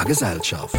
a Gesellschaft.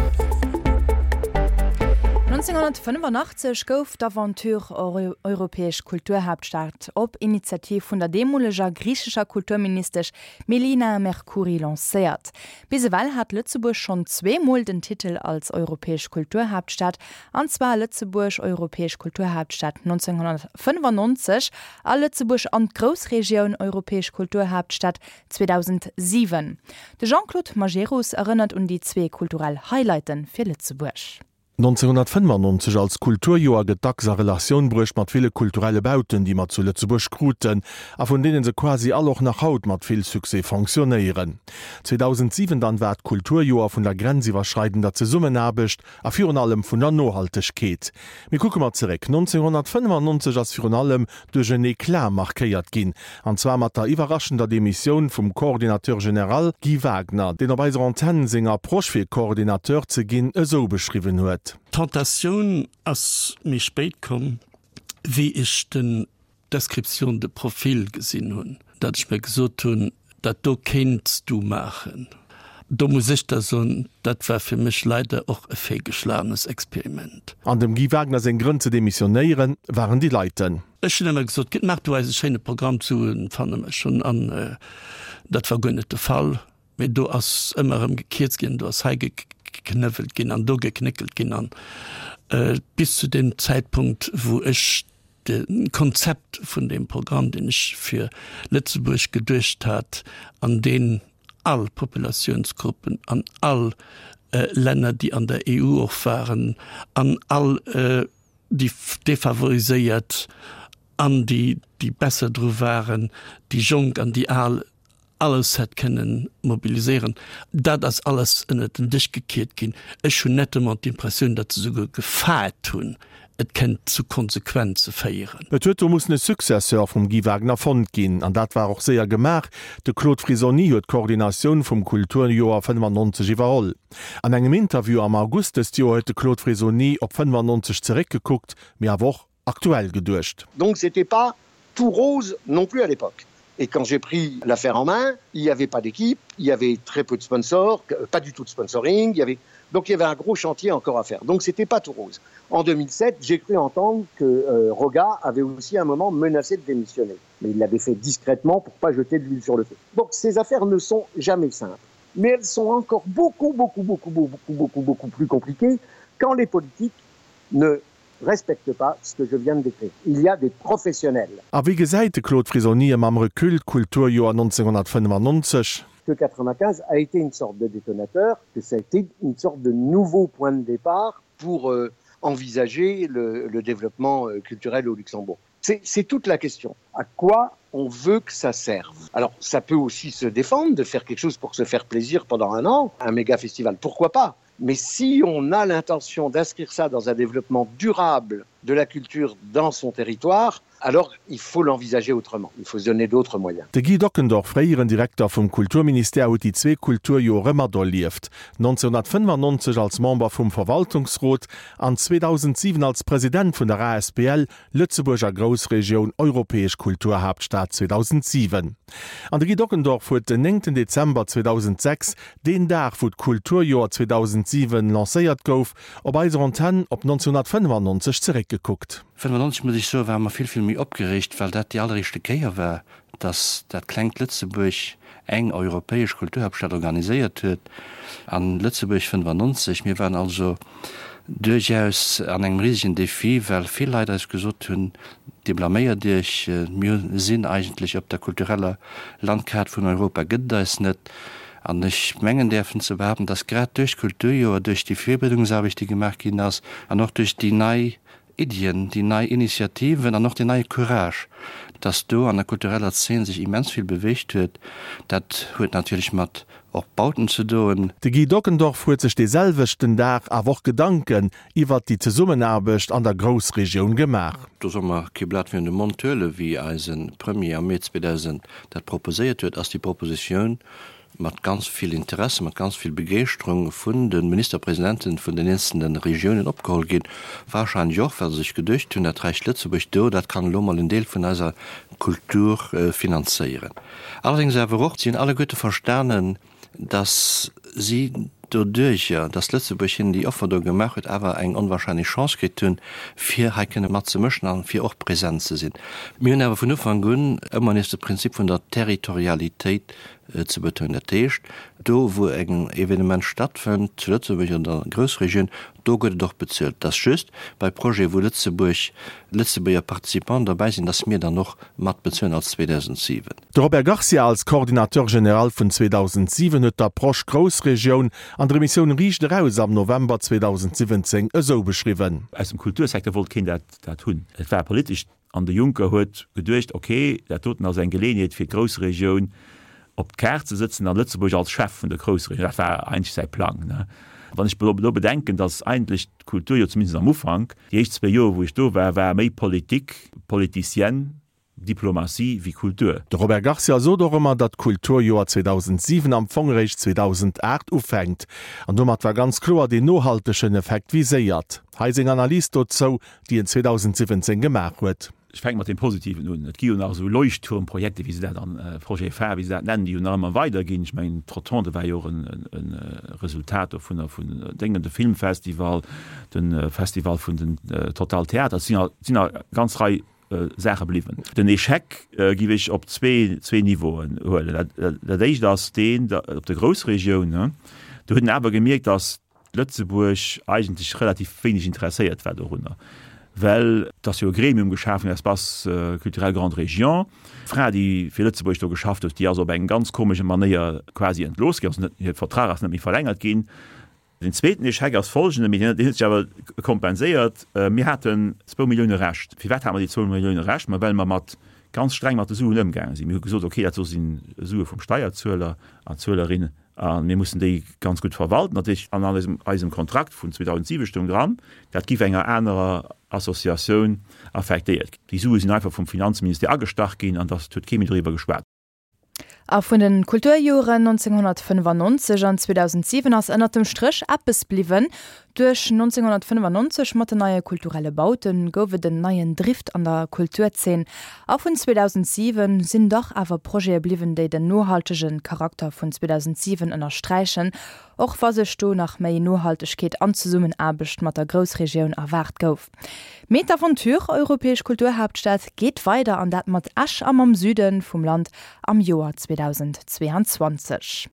1985 gouf d'Aventure Europäesch Kulturhaaptstad op Initiativ vun der deemoleger griichescher Kulturministesch Melina Mercouri lancéiert. Bis ewell hat Lëtzebuerg schonn zweemol den Titel als Europäesch Kulturhaaptstad, an zwar Lëtzebuerg Europäesch Kulturhaaptstad 1995 a Lëtzebuerg an d'Groussregioun Europäesch Kulturhaaptstad 2007. De Jean-Claude Majerus erënnert un déi zwee kulturell Highlighte fir Lëtzebuerg. 1995 als Kulturjoer gëtt dacks a Relatioun bruecht mat ville kulturelle Bauten, déi mer zu Lëtzebuerg kruten a vun deene se quasi all och nach haut mat vill Succès fonctionnéieren. 2007 dann war d'Kulturjoer vun der grenziwwerschreidender Zesummenaarbecht a virun allem vun der Nohaltegkeet. Mee kucke mer zeréck, 1995 ass virun allem duerch en Eclat markéiert ginn, an zwar mat der iwwerraschender Demissioun vum Coordinateur général Guy Wagner, deen op eiser Antenn seng Approche fir Coordinateur ze ginn esou beschriwwen huet. D'Tentatioun ass méi spéit komm, wéi ech den Description de profil gesinn hunn, datt ech mir gesot hunn, dat do kéints du maachen. Do muss ech da soen, dat war fir mech leider och e feelgeschlagenes Experiment. An dem Guy Wagner seng Grënn ze demissionéieren waren déi leiten. Ech hunn ëmmer gesot, Maach du eis e schéine Programm, d'Suen fanne mer schonn. An dat war guer net de Fall. Mee do ass ëmmer erëm gekierzt ginn, do ass hei geknëwwelt ginn an do geknéckelt ginn. An bis zu deem Zäitpunkt, wou ech de Konzept vun deem Programm, deen ech fir Lëtzebuerg geduecht hat an deen all Populatiounsgruppen an all Länner, déi an der EU och waren, an all déi Defavoriséiert an déi, déi besser dru waren, déi Jonk an déi Al, alles hätt kënnen mobiliséieren, dat ass alles ënnert den Dësch gekiert ginn. Ech hunn nettement d'Impressioun, datt se souguer gefaart hunn, et kënnt zu Konsequenze féieren. Et huet do mussen e Successeur vum Guy Wagner fonnt ginn, an dat war och séier gemaach, De Claude Frisoni huet d'Koordinatioun vum Kulturjoer 95 iwwerholl. An engem Interview am August dëst Joer huet de Claude Frisoni op 95 zeréckgekuckt, mee awer och aktuell geduecht. Donc c'était pas tout rose non plus à l'époque. Et quand j'ai pris l'affaire en main, il n'y avait pas d'équipe, il y avait très peu de sponsors, pas du tout de sponsoring, il y avait donc il y avait un gros chantier encore à faire. Donc c'était pas tout rose. En 2007, j'ai cru entendre que euh, Roga avait aussi à un moment menacé de démissionner. Mais il l'avait fait discrètement pour pas jeter de l'huile sur le feu. Donc ces affaires ne sont jamais simples. Mais elles sont encore beaucoup, beaucoup, beaucoup, beaucoup, beaucoup, beaucoup plus compliquées quand les politiques ne respecte pas ce que je viens de décrire. Il y a des professionnels. A wéi gesäit de Claude Frisoni mam Recul d'Kulturjoer 1995? Que 95 a été une sorte de détonateur, que ça a été une sorte de nouveau point de départ pour euh, envisager le, le développement euh, culturel au Luxembourg. C'est toute la question. À quoi on veut que ça serve Alors ça peut aussi se défendre de faire quelque chose pour se faire plaisir pendant un an, un méga festival, pourquoi pas Mais si on a l'intention d'inscrire ça dans un développement durable de la culture dans son territoire, alors il faut l'envisager autrement, il faut se donner d'autres moyens. De Guy Dockendorf, fréieren Direkter vum Kulturministère, huet déi zwee Kulturjore materlieft, 1995 als Member vum Verwaltungsrot an 2007 als President vun der asbl Lëtzebuerg a Groussregioun Europäesch Kulturhaaptstad 2007. An de Guy Dockendorf huet den 9 Dezember 2006, deen Dag wou d'Kulturjoer 2007 lancéiert gouf, op eiser Antenn op 1995 zeréckgekuckt. 95, muss ech soen, ware mer vill, vill méi opgereegt, well dat déi alleréischte Kéier war, dass dat klengt Lëtzebuerg eng europäesch Kulturhaaptstad organiséiert huet. An Lëtzebuerg 95, mir waren also duerchaus an engem risegen Défi, well vill Leit eis gesot hunn, Dir blaméiert Iech, mir sinn eigentlech op der kultureller Landkaart vun Europa gëtt et eis net. An ech mengen däerfen ze behaapten, dass grad duerch d'Kulturjoer, duerch déi Virbereedungsaarbecht, déi gemaach ginn ass, an och duerch déi nei Iddien, déi nei Initiativen an och deen neie Courage, dass do an der kultureller Zeen sech immens vill beweegt huet, dat huet natierlech mat och Bauten ze doen. De Guy Dockendorf huet sech dee selwechten Dag awer och Gedanken iwwert déi Zesummenaarbecht an der Groussregioun gemaach. Do solle mer kee Blat virun de Mond huelen, wéi eise Premier am Mee 2000 dat proposéiert huet, ass déi Propositioun mat ganz vill Interesse, mat ganz vill Begeeschterung vun de Ministerpresidenten vun den eenzelne Regiounen opgeholl ginn, wahrscheinlech och, well se sech geduecht hunn, dat räicht Lëtzebuerg do, dat kann elo mol en Deel vun eiser Kultur finanzéieren. Allerdéngs awer och, si hunn alleguerte verstanen, dass si. Doduerjer, dass Lëtzebuerg hinnen déi Offer do gemaach huet, awer eng onwahrscheinlech Chance kritt hunn, fir hei kënne matzemëschen an fir och present ze sinn. Mir hunn awer vun Ufank un ëmmer nees de Prinzip vun der Territorialitéit ze betounen. Dat heescht, do wou en Evenement stattfënnt, zu Lëtzebuerg oder an der Groussregioun, do gëtt et och bezuelt. Et ass just bei Projete wou Lëtzebuerg, Lëtzebuerger Participanten derbäi sinn, dass mir dann och mat bezuelen als 2007. De Robert Garcia als Coordinateur général vun 2007 huet d'Approche Groussregioun an der Emissioun Riicht eraus am November 2017 esou beschriwwen. Aus dem Kultursecteur wollt keen dat hunn. Et war politesch An de Juncker huet geduecht, ok, dat doten ass eng Geleeënheet fir d'Groussregioun op d'Kaart ze sëtzen an Lëtzebuerg als Chef vun der Groussregioun. Dat war eigentlech säi Plang. Wann ech elo bedenken, datt eigentlech d'Kultur jo zumindest am Ufank, déi éischt zwéi Joer wou ech do war, war méi Politik, politicienne, Diplomatie wéi Kultur. De Robert Garcia sot och ëmmer, datt d'Kulturjoer 2007 am Fong eréischt 2008 ufänkt. An domat war ganz kloer deen nohaltegen Effekt viséiert. Hei seng Analys dozou, déi en 2017 gemaach huet. Ech fänke mat deem Positiven un. Et gi jo nach esou Leuchtturmprojekte, wéi se dat an, Projet phare, wéi se dat nennen, déi jo nach ëmmer weiderginn. Ech mengen, d'Rotonde war jo och e Resultat dovunner, vun Déngen, de Filmfestival, de Festival vun den Total Theater. Et sinn nach eng ganz Rei Saache bliwwen. Den Échec giff ech op zwee Niveauen huelen. Dat éischt ass deen op der Groussregioun. Do huet een awer gemierkt, datt Lëtzebuerg eigentlech relativ wéineg interesséiert war dorunner, well et ass jo e Gremium geschaf ginn, Espace culturel Grande Région. D'Fra, déi fir Lëtzebuerg do geschafft huet, déi ass op eng ganz komesche Manéier quasi entlooss ginn, also net, hir Vertrag ass net méi verlängert ginn. Den zweeten Echec ass folgenden, mee deen huet sech awer kompenséiert, Mir haten zwou Millioune Rescht. Firwat hate mer déi zwou Millioune Rescht? Ma well mer mat ganz streng mat de Suen ëmgaange sinn. Mir hu gesot, okay, dat do si Sue vum Steierzueler an Zuelerinne a mir mussen déi ganz gutt verwalten. Dat heescht, an eisem Kontrakt vun 2007 stoung dran, dat giff enger anerer Associatioun affektéiert ginn. Déi Sue sinn einfach vum Finanzministère agestach ginn an dat huet kee méi doriwwer geschwat. A vun de Kulturjoren 1995 an 2007 ass ënnert dem Stréch eppes bliwwen, Duerch 1995 mat den neie kulturelle Baute gouf et en neien Drift an der Kulturzeen. A vun 2007 sinn dach awer Projete bliwwen, déi den nohaltege Charakter vun 2007 ënnersträichen, och wa sech do nach méi Nohaltegkeet an Zesummenaarbecht mat der Groussregioun erwaart gouf. Mee d'Aventure Europäesch Kulturhaaptstad geet weider, an dat mat Esch a mam Süde vum Land am Joer 2022.